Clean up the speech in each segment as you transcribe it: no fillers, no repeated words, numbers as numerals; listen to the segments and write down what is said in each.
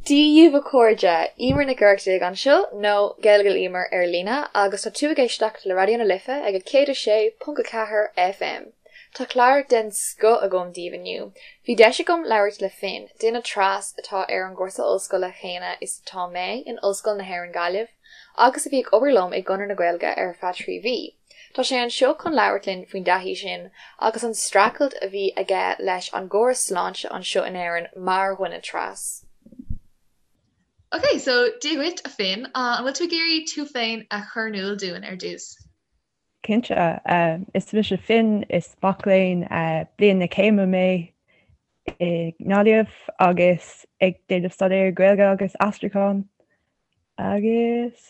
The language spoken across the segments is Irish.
Dia dhaoibh a chairde, Emer Nic Oireachtaigh anseo, nó Gaeilge le Emer ar líne, agus tá tú ag éisteacht le Raidió na Life ag 106.4 FM. Tá clár den scoth agam daoibh inniu. Bhí deis agam labhairt le Finn, duine tras atá ar an gcúrsa ollscoile chéanna is atá mé in Ollscoil na hÉireann Gaillimh, agus a bhí ag obair liom i gConradh na Gaeilge ar feadh 3 mhí. Tá sé anseo chun labhairt linn faoin dtaithí sin agus an streachailt a bhí aige leis an gcóras sláinte anseo in Éirinn mar dhuine tras. Ok, so Dia dhuit, a Finn. An bhfuil tú ag iarraidh tú féin a chur in iúl dúinn ar dtús? Cinnte. Is mise Finn, is mac léinn bliain na céime mé i nGaillimh agus ag déanamh staidéar Gaeilge agus aistriúchán agus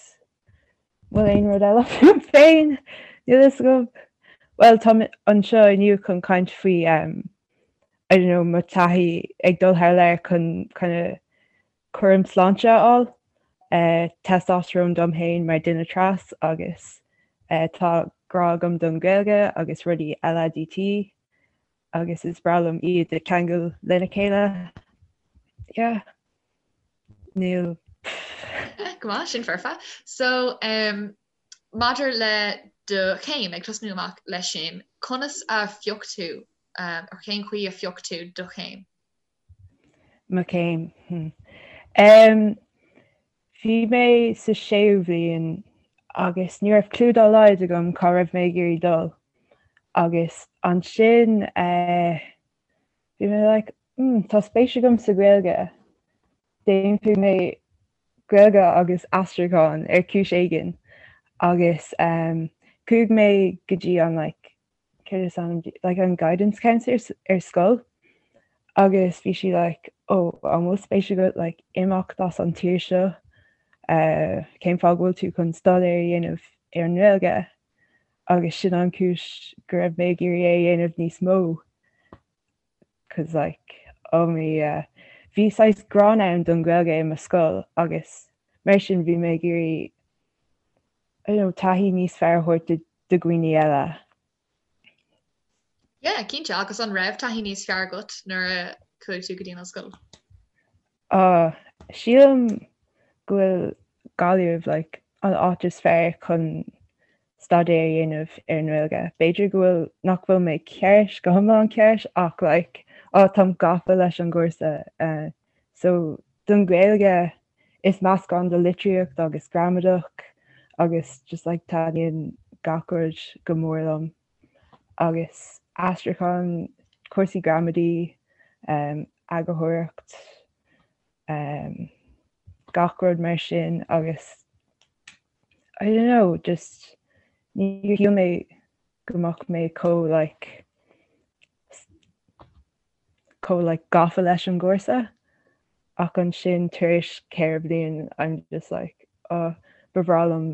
bhfuil aon rud eile fúm féin? Níl fhios agam. Bhuel, táim anseo inniu chun caint faoi um, I don't know, mo taithí ag dul thar lear chun kind of cúram sláinte a fháil, uh, testosterone dom féin mar duine tras agus uh, tá grá agam don Ghaeilge agus rudaí LADT agus is breá liom iad a cheangal lena chéile. Yeah. Níl. Go maith, sin foirfe. So, um, maidir le do chéim, ag tosnú amach leis sin, conas a phioc tú, um, or cén chaoi a phioc tú do chéim? Mo chéim. Hmm. Um, bhí mé sa séú bhliain agus ní raibh clue dá laghad agam cá raibh mé ag iarraidh dul. Agus ansin uh, bhí mé like, Hmm, tá spéis agam sa Ghaeilge. Déanfaidh mé Gaeilge agus aistriúchán ar chúis éigin. Agus um, chuaigh mé go dtí an like, céard is ainm di, like an guidance counselor ar scoil agus bhí sí like, oh, an bhfuil spéis agat like, imeacht as an tír seo? Uh, cén fáth go bhfuil tú chun staidéar a dhéanamh ar an nGaeilge? Agus sin an chúis go raibh mé ag iarraidh é a dhéanamh níos mó. 'Cause like oh me yeah bhí saghas gráin ann don Ghaeilge i mo scoil agus mar sin bhí mé ag iarraidh I don't know taithí níos fearr a thabhairt do do dhaoine eile. Yeah, cinnte, agus an raibh taithí níos fearr agat nuair a chuaigh tú go dtí an ollscoil? Ah, sílim go bhfuil Gaillimh like an áit is fearr chun staidéar a dhéanamh ar an nGaeilge. B'fhéidir go bhfuil, nach bhfuil mé ceart, go hiomlán ceart ach like ah táim gafa leis an gcúrsa. Eh, so don Ghaeilge is meascán de litríocht agus gramadach agus just like taitníonn gach rud go mór liom. Agus aistriúchán, cúrsaí gramadaí, eagarthóireacht, gach rud mar sin agus I don't know, just níor shíl mé go mbeadh mé chomh like chomh like gafa leis an gcúrsa ach ansin tar éis 4 bliain I'm just like oh ba bhreá liom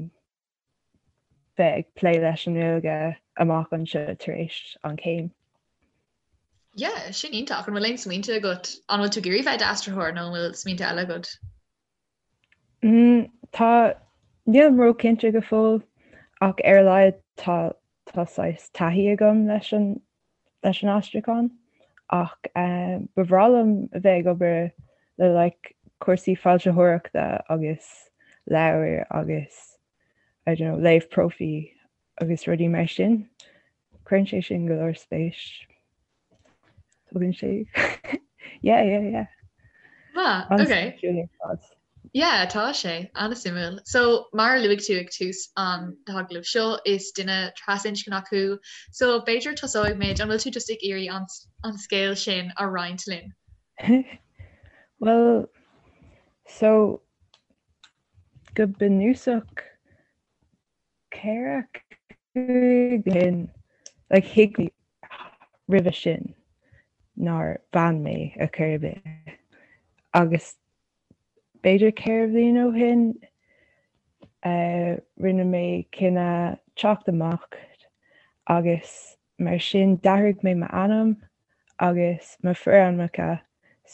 bheith ag plé leis an nGaeilge amach anseo tar éis an chéim. Yeah, sin iontach. An bhfuil aon smaointe agat? An bhfuil tú ag iarraidh bheith i d'aistritheoir nó an bhfuil smaointe eile agat? Mm, tá, nílim róchinnte go fóill ach ar a laghad tá tá saghas taithí agam leis an leis an aistriúchán ach eh, ba bhreá liom a bheith ag obair le like cúrsaí foilsitheoireachta agus leabhair agus I don't know, léamh profaí agus rudaí mar sin. Cuireann sé sin go leor spéis. Tugann sé Yeah, yeah, yeah. Ah, okay. Yeah, tá sé an-suimiúil. So mar a luaigh tú ag tús an t-agallamh seo is duine trasinscneach thú, so b'fhéidir tosóidh muid, an bhfuil tú just ag iarraidh an, an scéal sin a roinnt linn? Well, so Go bunúsach, 4, 5 bliain like thuig mé roimhe sin nár bhean mé ar chor ar bith agus b'fhéidir 4 bhliain ó shin rinne mé cinneadh teacht amach agus mar sin d'athraigh mé m'ainm agus mo forainmneacha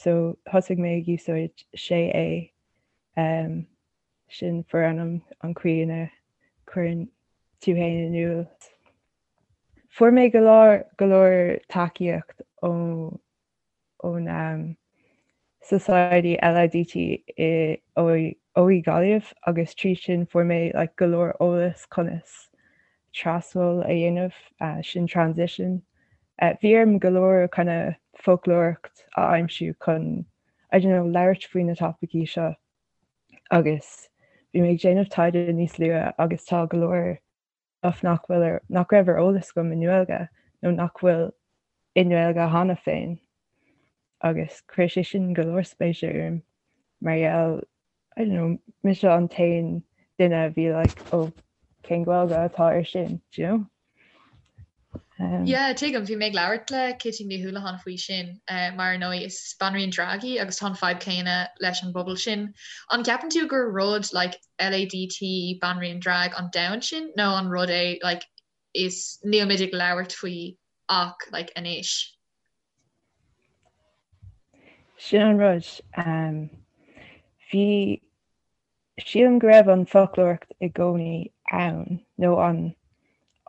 so thosaigh mé ag úsáid sé é Sin forainm an chaoi ina cuireann tú féin in iúl. Fuair mé go leor go leor tacaíocht ón ón Society LADT i OÉ Gaillimh agus trí sin fuair mé like go leor eolas conas trasdul a dhéanamh, sin transition. Bhí orm go leor kind of foclóireacht a aimsiú chun I don't know labhairt faoi na topaicí seo agus bhí mé ag déanamh taighde níos luaithe agus tá go leor stuff nach bhfuil ar, nach raibh ar eolas agam i nGaeilge nó nach bhfuil i nGaeilge cheana féin agus chuir sé sin go leor spéise orm mar gheall I don't know, mise an t-aon duine a bhí like oh cén Ghaeilge atá ar sin, do you know? Um, yeah, tuigim, bhí mé ag labhairt le Kitty Ní Houlihan faoi sin, uh, mar ar ndóigh is banríon drag í agus tá an fadhb céanna leis an bpobal sin. An gceapann tú gur rud like, LADT banríon drag an domhan sin nó an rud é like, is níl muid ag labhairt faoi ach like, anois? Sin an rud. Um, bhí sílim go raibh an foclóireacht i gcónaí ann nó an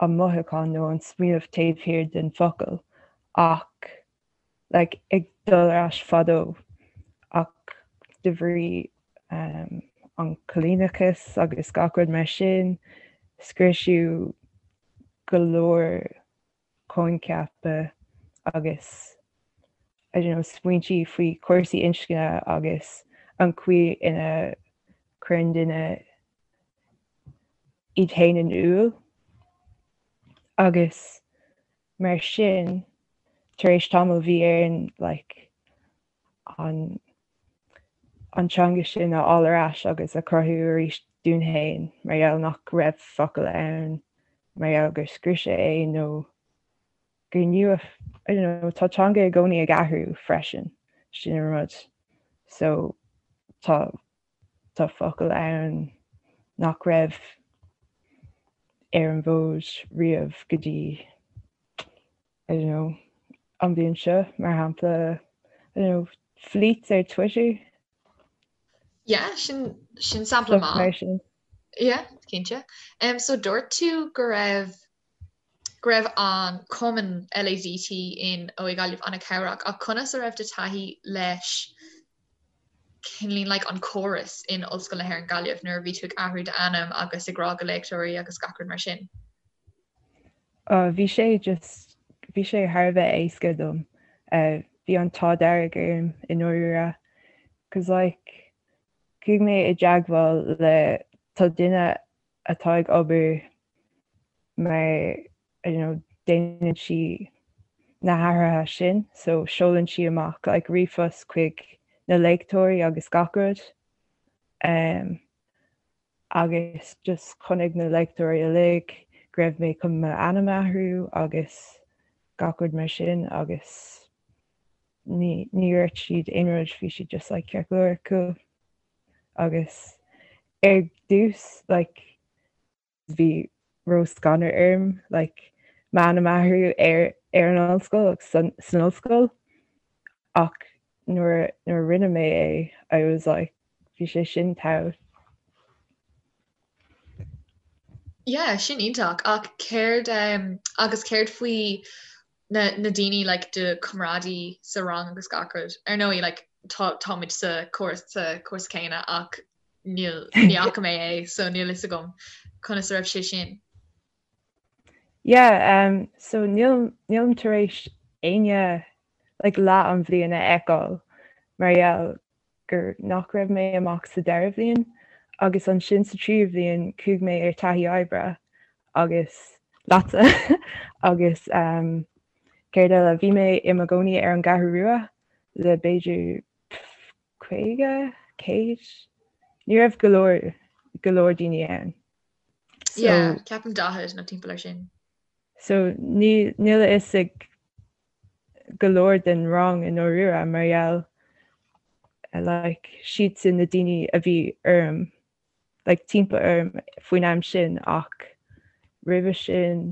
an mothúchán nó an smaoineamh taobh thiar den focal ach like, ag dul ar ais fadó ach de bhrí um, an coilíneachas agus gach rud mar sin scriosadh go leor coincheapa agus I don't know smaointí faoi chúrsaí inscne agus an chaoi ina gcuireann duine iad féin in iúl agus mar sin tar éis tamaill bhí orainn like an an teanga sin a fháil ar ais agus a chruthú arís dúinn féin mar gheall nach raibh focal ann mar gheall gur scriosadh é nó gur nua I don't know tá teanga i gcónaí ag athrú freisin sin an rud so tá tá focal ann nach raibh ar an bhfód riamh go dtí I don't know, an bhliain seo, mar shampla, I don't know, fleets ar Twitter. Yeah, sin, sin sampla maith. Sin. Yeah, cinnte. Um, so dúirt tú go raibh go raibh an cumann LADT in OÉ Gaillimh an-chabhrach ach conas a raibh do taithí leis cineál like an córas in Ollscoil na hÉireann Gaillimh nuair a bhí tú ag athrú d'ainm agus ag rá go léachtóirí agus gach rud mar sin? Bhí sé just, bhí sé thar a bheith éasca dom. Bhí an t-ádh dearg orm i ndáiríre. Cause like, chuaigh mé i dteagmháil le, tá duine atá ag obair mar, I don't know, déanann sí na hathruithe sin, so seolann sí amach like ríomhphost chuig na léachtóirí agus gach rud. Um, agus just chonaic na léachtóirí uilig go raibh mé chun m'ainm a athrú agus gach rud mar sin agus ní ní dúirt siad aon rud, bhí siad just like ceart go leor, cool. Agus ar dtús like bhí ró-scanradh orm like m'ainm a athrú ar ar an ollscoil agus san san ollscoil ach nuair nuair a rinne mé é I was like bhí sé sin togha. Yeah, sin iontach ach céard um, agus céard faoi na, na daoine like, do comrádaí sa rang agus gach rud? Ar ndóigh like, tá, táimid sa cúrsa, sa cúrsa céanna ach níl, ní fhaca mé é so níl fhios agam conas a raibh sé sin. Yeah, um, so níl, nílim tar éis éinne like, leath an bhliain a fheiceáil mar gheall gur nach raibh mé amach sa dara bhliain agus ansin sa tríú bhliain chuaigh mé ar taithí oibre agus leatsa agus um, céard eile bhí mé i mo gcónaí ar an gCeathrú Rua le b'fhéidir 50, 100 ní raibh go leor go leor daoine ann. So, yeah, ceapaim 40 nó timpeall ar sin. So ní níl a fhios ag go leor den rang i ndáiríre mar gheall like siadsan na daoine a bhí orm like timpeall orm faoin am sin ach roimhe sin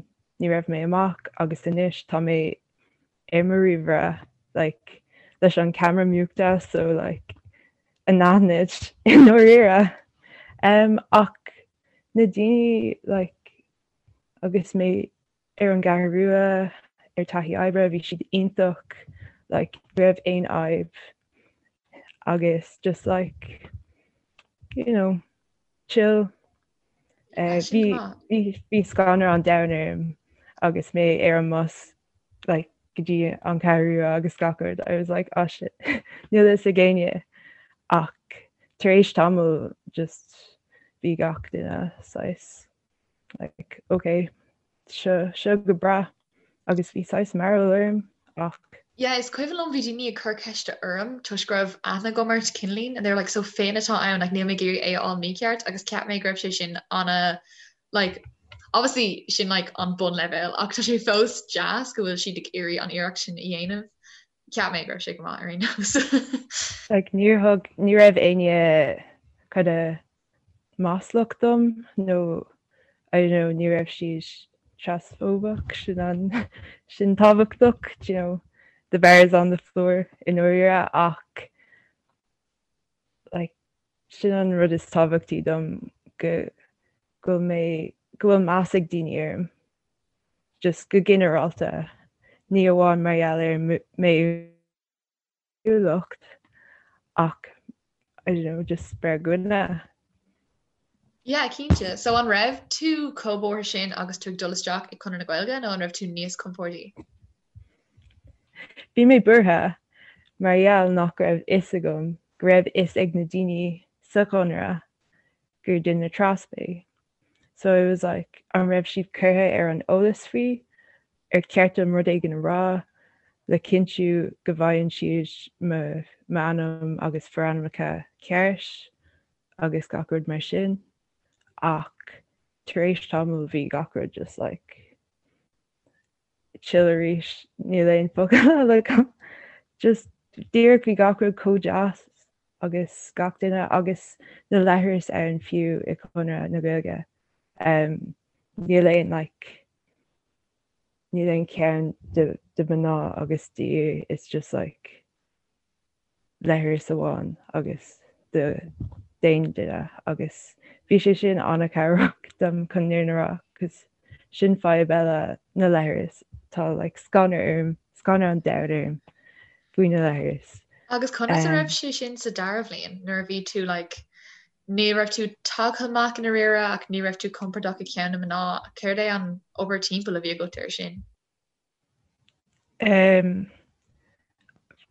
ní raibh mé amach agus anois tá mé ar mo ríomhaire like leis an camera múchta so like anaithnid i ndáiríre um, ach na daoine like agus mé ar an gCeathrú Rua ar taithí oibre, bhí siad iontach, like ní raibh aon fhadhb. agus just like you know chill. Bhí bhí scanradh an domhain orm agus mé ar an mbus like go dtí an Cheathrú Rua agus gach rud. I was like oh shit níl fhios ag éinne ach tar éis tamaill just bhí gach duine saghas like ok seo seo go breá agus bhí saghas mearbhall orm ach. Yeah is cuimhin liom bhí daoine ag cur ceiste orm toisc go raibh aithne agam ort cineáilín and they were like so Finn atá ann like níl mé ag iarraidh é a fháil mícheart agus cheap mé go raibh sé sin ana like obviously sin like an bunleibhéal ach tá sé fós deas go bhfuil siad ag iarraidh an iarracht sin a dhéanamh. Cheap mé go raibh sé go maith ar aon nós. Like níor thug ní raibh éinne kind of maslach dom nó I don't know ní raibh siad trasfóbach sin an sin tábhachtach do you know the bar is on the floor i ndáiríre ach like sin an rud is tábhachtaí dom go go bhfuil mé go bhfuil meas ag daoine orm just go ginearálta ní amháin mar gheall ar m'fhéiniúlacht ach I don't know just mar dhuine. Yeah, cinnte. So an raibh tú chomh buartha sin agus tú ag dul isteach i Conradh na Gaeilge nó an raibh tú níos compórdaí? Bhí mé buartha mar gheall nach raibh fhios agam go raibh fhios ag na daoine sa Chonradh gur duine tras mé. So I was like an raibh siad curtha ar an eolas faoi? Ar cheart dom rud éigin a rá le cinntiú go bhfaigheann siad m'ainm agus forainmneacha ceart agus gach rud mar sin? Ach tar éis tamaill bhí gach rud just like chill arís, níl aon focal eile agam. Just díreach bhí gach rud chomh deas agus gach duine agus na leithris ann fiú i Conradh na Gaeilge. Um, níl aon like níl aon ceann do, do mná agus d'fhir, it's just like leithreas amháin agus d'aon duine agus bhí sé sin an-chabhrach dom chun an fhírinne a rá cos sin fadhb eile na leithris tá like scanradh orm scanradh an domhain orm faoi na leithris. Agus conas a raibh sé sin sa dara bhliain nuair a bhí tú like ní raibh tú tagtha amach i ndáiríre ach ní raibh tú compordach i gceann na mná céard é an obair timpeall a bhí agat air sin? Um,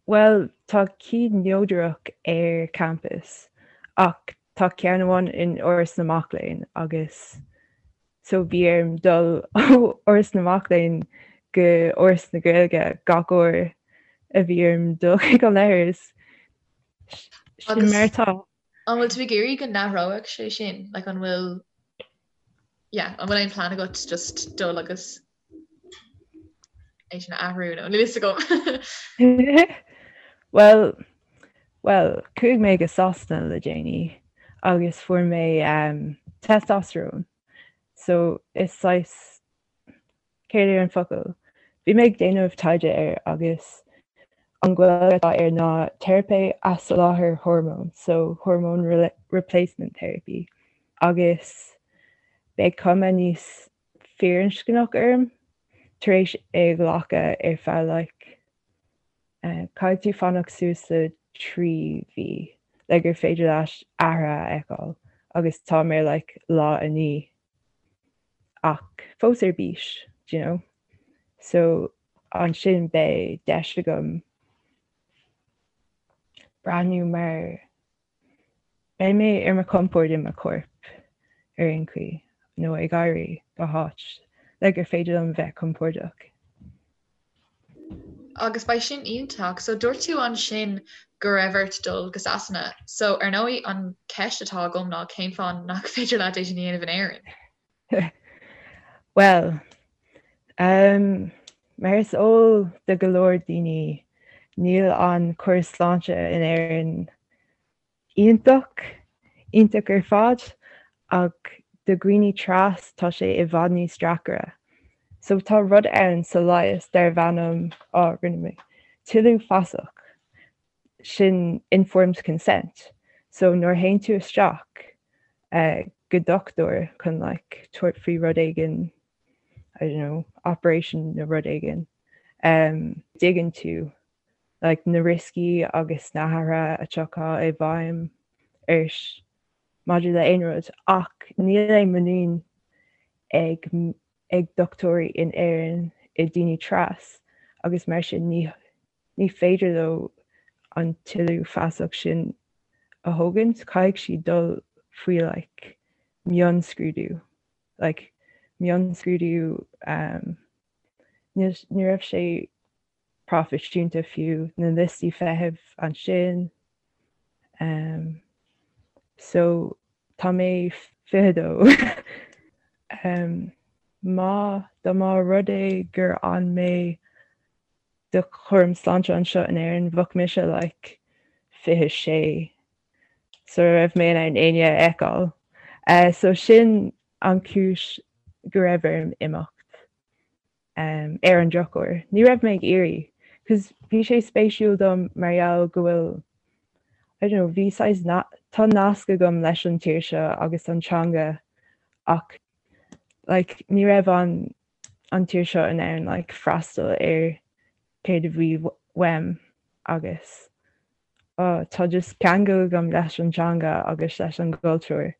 bhuel, tá cinn neodrach ar campus ach tá ceann amháin in Áras na Mac Léinn agus so bhí orm dul ó Áras na Mac Léinn go Áras na Gaeilge gach uair a bhí orm dul chuig an leithreas. Sin mar atá. An bhfuil tú ag iarraidh go n-athródh sé sin? Like an bhfuil yeah, an bhfuil aon plean agat just dul agus é sin a athrú nó níl fhios agam. Well, well, chuaigh mé go Sasana le déanaí agus fuair mé um, testosterone. So is saghas Céard é an focal? Bhí mé ag déanamh taighde air agus an Ghaeilge atá air ná teiripe athsholáthair hormón, so hormone replacement therapy, agus beidh cuma níos firinscneach orm tar éis é a ghlacadh ar feadh like caithfidh tú fanacht suas le 3 mhí le gur féidir leat athrú a fheiceáil agus táim ar like lá 9. ach fós ar bís, do you know. So ansin beidh deis agam breathnú mar beidh mé ar mo chompord i mo chorp ar aon chaoi nó ag éirí go háit le gur féidir liom bheith compordach. Agus beidh sin iontach. So dúirt tú ansin go raibh ort dul go Sasana. So ar ndóigh an ceist atá agam ná cén fáth nach féidir leat é sin a dhéanamh in Éirinn? Bhuel, um, mar is eol do go leor daoine, níl an córas sláinte in Éirinn Iontach, iontach ar fad, ach do dhaoine tras tá sé i bhfad níos deacra. So tá rud ann sa leigheas darbh ainm, á, rinne mé, toiliú feasach, sin informed consent. So nuair a théann tú isteach go dochtúir chun like tabhairt faoi rud éigin, I don't know, operation nó rud éigin, dtuigeann tú. Like na rioscaí agus na hathruithe a tiocfaidh i bhfeidhm ort maidir le aon rud ach níl aon muinín ag ag dochtúirí in Éirinn i daoine tras agus mar sin ní ní féidir leo an tuilleadh feasach sin a thógaint, caithfidh siad dul faoi like mionscrúdú like mionscrúdú um, ní ní raibh sé proifisiúnta fiú, na liostaí feithimh ansin. Um, so tá mé 22. um, má dá mba rud é gur fhan mé do chúram sláinte anseo in Éirinn, bheadh mise like 26 sula raibh mé in ann éinne a fheiceáil. Uh, so sin an cúis go raibh orm imeacht. Ar an drochuair, ní raibh mé ag iarraidh, cos bhí sé spéisiúil dom mar gheall go bhfuil, I don't know, bhí saghas, tá nasc agam leis an tír seo agus an teanga ach like ní raibh an an tír seo in ann like freastal ar céard a bhí uaim agus oh tá just ceangal agam leis an teanga agus leis an gcultúr.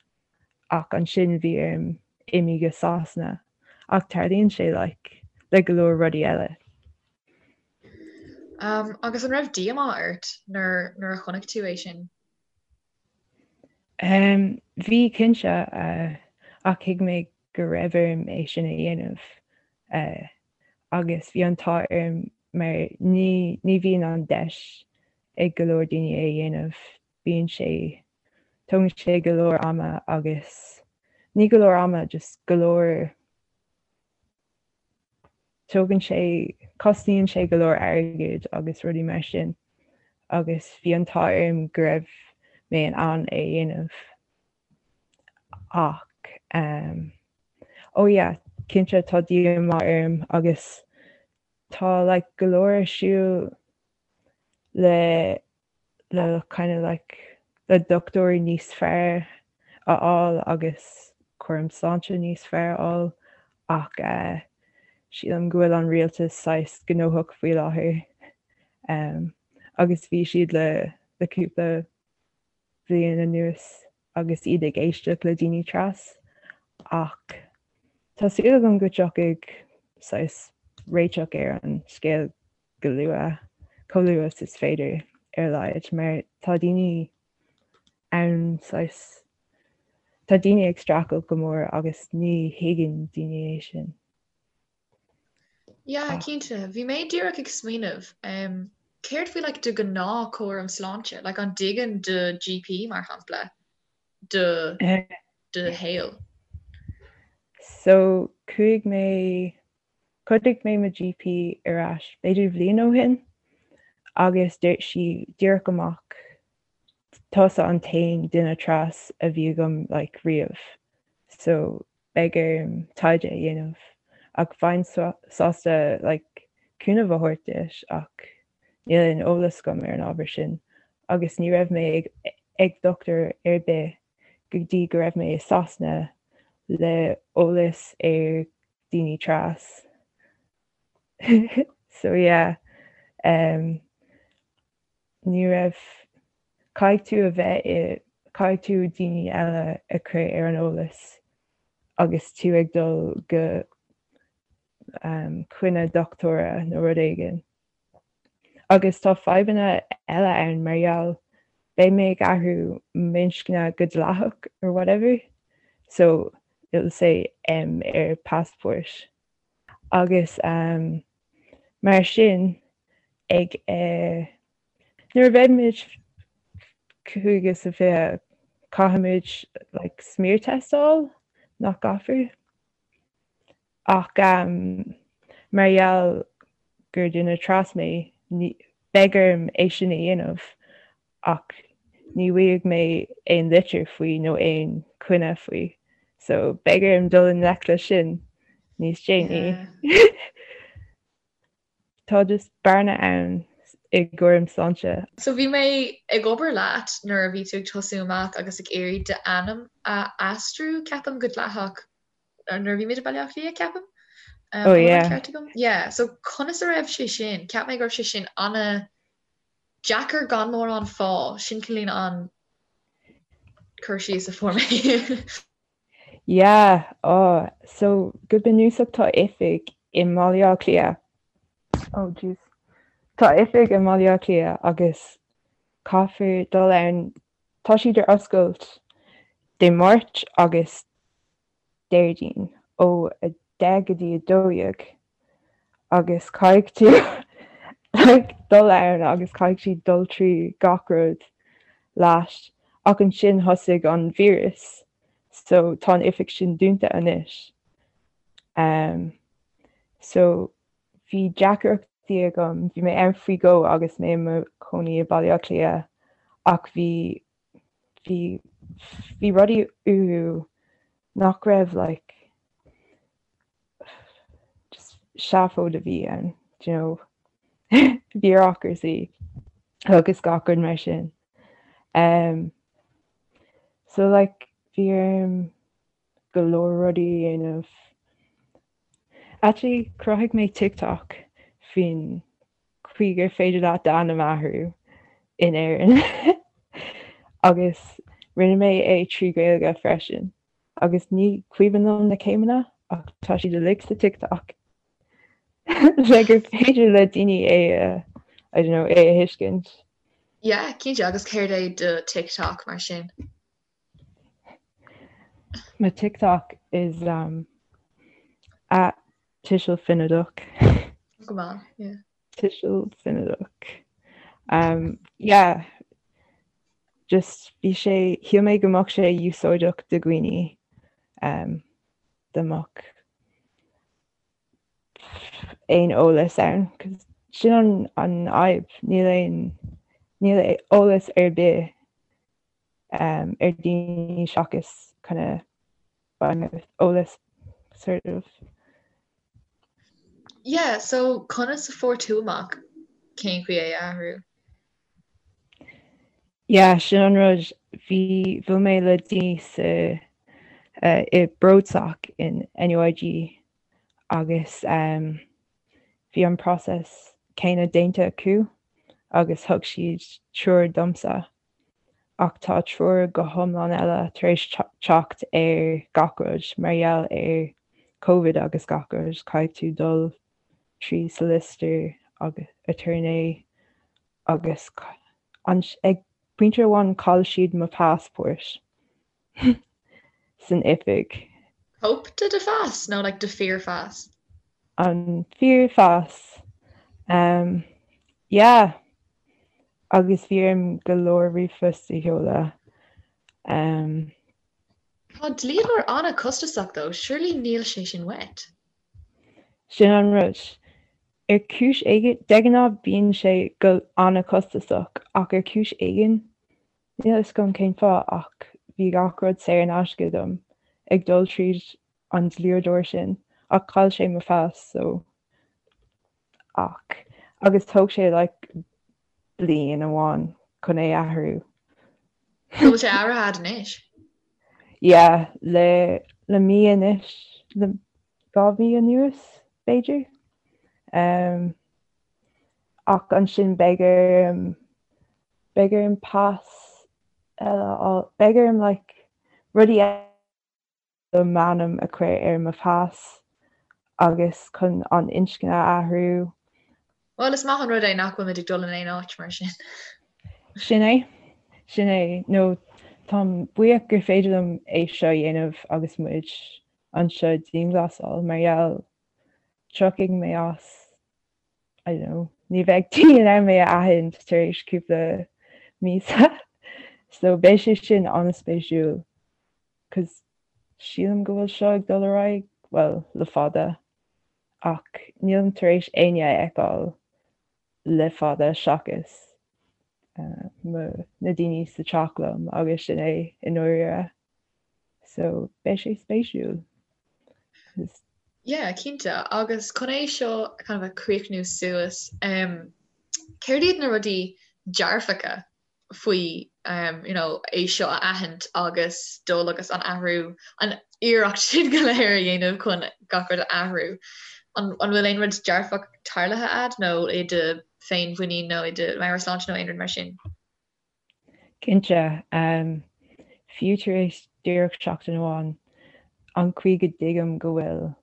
ach ansin bhí orm imí go Sasana ach tarlaíonn sé like le go leor rudaí eile. Um, agus an raibh díomá ort nuair nuair a chonaic tú é sin? Um, bhí cinnte uh, ach thuig mé go raibh orm é sin a dhéanamh uh, agus bhí an t-ádh orm mar ní, ní bhíonn an deis ag go leor daoine é a dhéanamh bíonn sé, tógann sé go leor ama agus, ní go leor ama, just go leor, tógann sé, cosnaíonn sé go leor airgid agus rudaí mar sin agus bhí an t-ádh orm go raibh mé in ann é a dhéanamh ach um, oh yeah, cinnte tá díomá orm agus tá like go leor ar siúl le le kind of like le dochtúirí níos fearr a fháil agus cúram sláinte níos fearr a fháil ach eh, sílim go bhfuil an rialtas saghas gnóthach faoi láthair um, agus bhí siad le le cúpla bliain anuas agus iad ag éisteacht le daoine tras ach tá súil agam go dtiocfaidh saghas réiteach ar an scéal go luath, chomh luath is is féidir ar a laghad, mar tá daoine ann saghas, tá daoine ag streachailt go mór agus ní thuigeann daoine é sin. Yeah, cinnte. Bhí mé díreach ag smaoineamh, um, céard faoi like do ghnáth cúram sláinte? Like an dtuigeann do GP mar shampla do do shaol? So chuaigh mé Chuartaigh mé mo GP ar ais b'fhéidir bhliain ó shin agus dúirt sí díreach amach tusa an t-aon duine tras a bhí agam like riamh so beidh orm taighde a dhéanamh ach bheinn sásta like cúnamh a thabhairt duit ach níl aon eolas agam ar an ábhar sin agus ní raibh mé ag ag dochtúir ar bith go dtí go raibh mé i Sasana le eolas ar daoine tras. So yeah, um, ní raibh, caithfidh tú a bheith i, caithfidh tú daoine eile a chur ar an eolas agus tú ag dul go um, coinne dochtúra nó rud éigin. Agus tá fadhbanna eile ann mar gheall beidh mé ag athrú m'inscne go dleathach or whatever so it'll say M ar passport agus um mar sin ag eh nuair a bheidh muid 25 caithfimid like smear test a fháil nach gcaithfear? Ach mar gheall gur duine tras mé, beidh orm é sin a dhéanamh ach ní bhfaighidh mé aon litir faoi nó aon choinne faoi. So beidh orm dul i ngleic leis sin níos déanaí. Tá just bearna ann i gcúram sláinte. So bhí mé ag obair leat nuair a bhí tú ag tosú amach agus ag iarraidh d'ainm a aistriú, ceapaim, go dleathach nuair a bhí muid i Baile Átha Cliath, ceapaim. Oh yeah. Ceart agam? Yeah, so conas a raibh sé sin? Cheap mé go raibh sé sin ana. Deacair gan mórán fáth, sin cineál an cur síos a fuair mé. Yeah, oh, so go bunúsach tá oifig i mBaile Átha Cliath. Oh jeez. Tá oifig i mBaile Átha Cliath agus caithfear dul ann, tá siad ar oscailt Dé Máirt agus Déardaoin ó 10 go dtí 12 agus caithfidh tú like dul ann agus caithfidh siad dul trí gach rud leat ach ansin thosaigh an víreas so tá an oifig sin dúnta anois. Um, so bhí deacrachtaí agam, bhí mé ann faoi dhó agus mé i mo chónaí i Baile Átha Cliath ach bhí bhí bhí rudaí uathu nach raibh like just seafóid a bhí ann do you know bureaucracy agus gach rud mar sin. Um, so like bhí orm go leor rudaí a dhéanamh. Actually chruthaigh mé TikTok faoin chaoi gur féidir leat d'ainm a athrú in Éirinn agus rinne mé é trí Ghaeilge freisin agus ní cuimhin liom na céimeanna ach tá siad uilig sa TikTok le gur féidir le daoine é a I don't know é a thuiscint. Yeah, cinnte agus céard é do TikTok mar sin? My TikTok is um, at Tuiseal Finideach. Go maith, yeah. Tuiseal Finideach. Um, yeah, just bhí sé shíl mé go mbeadh sé úsáideach do dhaoine um, dá mbeadh aon eolas ann, 'cause sin an an fhadhb, níl aon níl eolas ar bith um, ar daoine seachas kind of eolas sort of. Yeah, so conas a fuair tú amach cén chaoi é a athrú? Yeah, sin an rud bhí bhuail mé le daoine sa uh, i BroadSoc in NUIG agus um, bhí an process céanna déanta acu agus thug siad treoir domsa. Ach tá treoir go hiomlán eile tar éis teacht ar gach rud mar gheall ar Covid agus gach rud, caithfidh tú dul trí solicitor agus attorney agus ag pointe amháin chaill siad mo passport. san oifig. Cóip de do phas nó like do fíorphas? An fíorphas. Um, yeah. Agus bhí orm go leor ríomhphost a sheoladh. Um, Tá dlíodóir an-chostasach though, surely níl sé sin uait? Sin an rud. Ar chúis éigin, de ghnáth bíonn sé go an-chostasach ach ar chúis éigin Níl a fhios agam cén fáth ach bhí gach rud saor in aisce dom ag dul tríd an dlíodóir sin ach chaill sé mo phas so ach agus thóg sé like bliain amháin chun é athrú. An bhfuil sé athraithe a'd anois? Yeah, le le mí anois, le 2 mhí anuas b'fhéidir. Um, ach ansin beidh orm Beidh orm pas eile a fháil. Beidh orm like rudaí eile m'ainm a chur ar mo phas agus chun an inscne a athrú. Bhuel, is maith an rud é nach bhfuil muid ag dul in aon áit mar sin. Sin é. Sin é. Nó táim buíoch gur féidir liom é seo a dhéanamh agus muid anseo i dianghlasáil mar gheall tiocfaidh mé as I don't know, ní bheidh daoine in ann mé a aithint tar éis cúpla míosa. So beidh sé sin an-spéisiúil 'cause sílim go bhfuil seo ag dul ar aghaidh, well, le fada ach nílim tar éis éinne a fheiceáil le fada seachas uh, na daoine sa teach liom agus sin é i ndáiríre. So beidh sé spéisiúil. Yeah, cinnte. Agus chun é seo kind of a chríochnú suas, um, céard iad na rudaí dearfacha faoi um, you know, é seo a aithint agus dul agus an athrú, an iarracht sin go léir a dhéanamh chun gach rud a athrú. An, an bhfuil aon rud dearfach tarlaithe a'd nó i do féinmhuinín nó i do mheabhairshláinte nó aon rud mar sin? Cinnte. Fiú tar éis díreach seachtain amháin, an chaoi go dtuigim go bhfuil,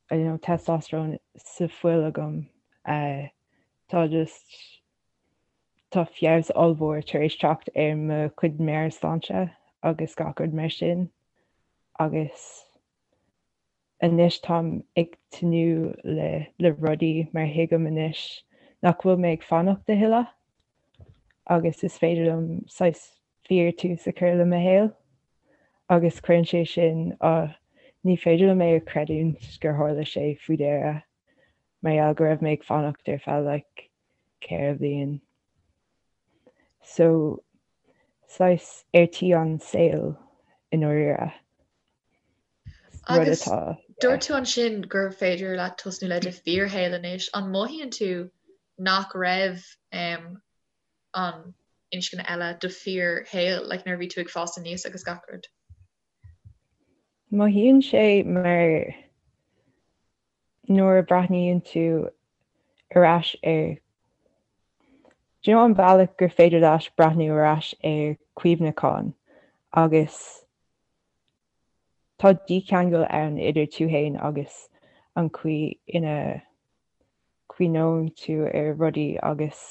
I don't know, testosterone sa fuil agam, tá just, tá feabhas ollmhór tar éis teacht ar mo chuid meabhairshláinte agus gach rud mar sin agus Anois táim ag tnúth le le rudaí mar thuigim anois nach bhfuil mé ag fanacht a thuilleadh agus is féidir liom saghas fíor tús a chur le mo shaol agus cuireann sé sin ah ní féidir liom é a chreidiúint gur tharla sé faoi dheireadh mar gheall go raibh mé ag fanacht ar feadh like 4 bhliain. So saghas ar tí an saol i ndáiríre. Agus dúirt tú ansin gur féidir leat tosnú le do fíorshaol anois. An mothaíonn tú nach raibh an inscne eile do fíorshaol, like nuair a bhí tú ag fás aníos agus gach rud? Mothaíonn sé mar nuair a breathnaíonn tú ar ais ar do you know an bealach gur féidir leat breathnú ar ais ar cuimhneachán agus Tá dícheangal ann idir tú fhéin agus an chaoi ina gcuimhneoidh tú ar rudaí agus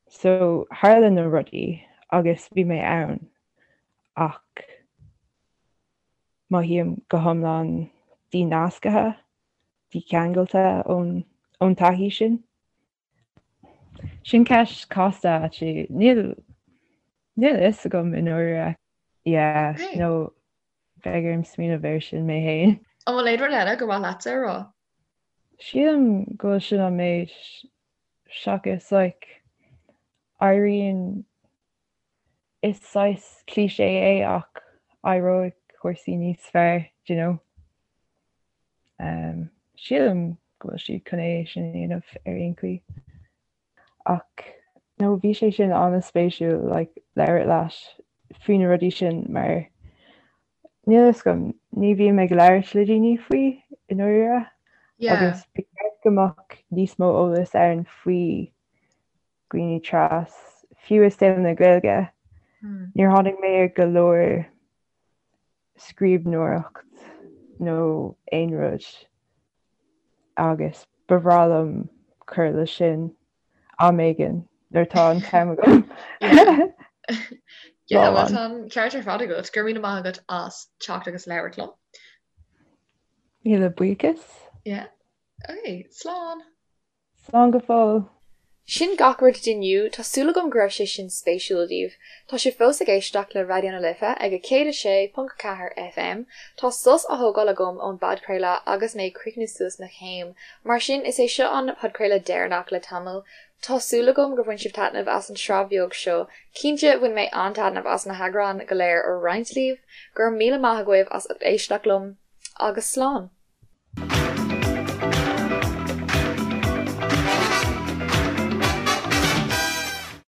so tharla na rudaí agus bhí mé ann ach mothaím go hiomlán dínasctha, dícheangailte ón taithí sin. Sin ceist casta actually. Níl níl a fhios agam i ndáiríre. Yeah, Okay. nó beidh orm smaoineamh air sin mé fhéin. An bhfuil aon rud eile gur mhaith leatsa a rá? Sílim go bhfuil sin an méid seachas like éiríonn is saghas cliché é ach éireoidh cúrsaí níos fearr, do you know. Um, sílim go bhfuil siad chun é sin a dhéanamh ar aon chaoi. Ach no bhí sé sin an-spéisiúil like, labhairt leat faoi na rudaí sin mar níl a fhios agam, ní bhím ag labhairt le daoine faoi i ndáiríre Yeah. agus ba cheart go mbeadh níos mó eolas ann faoi dhaoine tras, fiú i saol na Gaeilge. Hmm. Níor tháinig mé ar go leor scríbhneoireacht nó aon rud agus ba bhreá liom cur leis sin am éigin nuair atá an t-am agam. Yeah, well tá an ceart ar fad agat. Go raibh míle maith agat as teacht agus labhairt liom. Míle buíochas. Yeah. Okay, slán. Slán go fóill. Sin gach rud d'inniu, tá súil agam go raibh sé sin spéisiúil daoibh. Tá sibh fós ag éisteacht le Raidió na Life ag 106.4 FM. Tá sos á thógáil agam ón bpodchraoladh agus mé ag críochnú suas mo chéim, mar sin is é seo an podchraoladh deireanach le tamall. Tá súil agam gur bhain sibh taitneamh as an tsraith bheag seo. Cinnte, bhain mé an-taitneamh as na heagráin go léir a roinnt libh. Go raibh míle maith agaibh as ucht éisteacht liom, agus slán!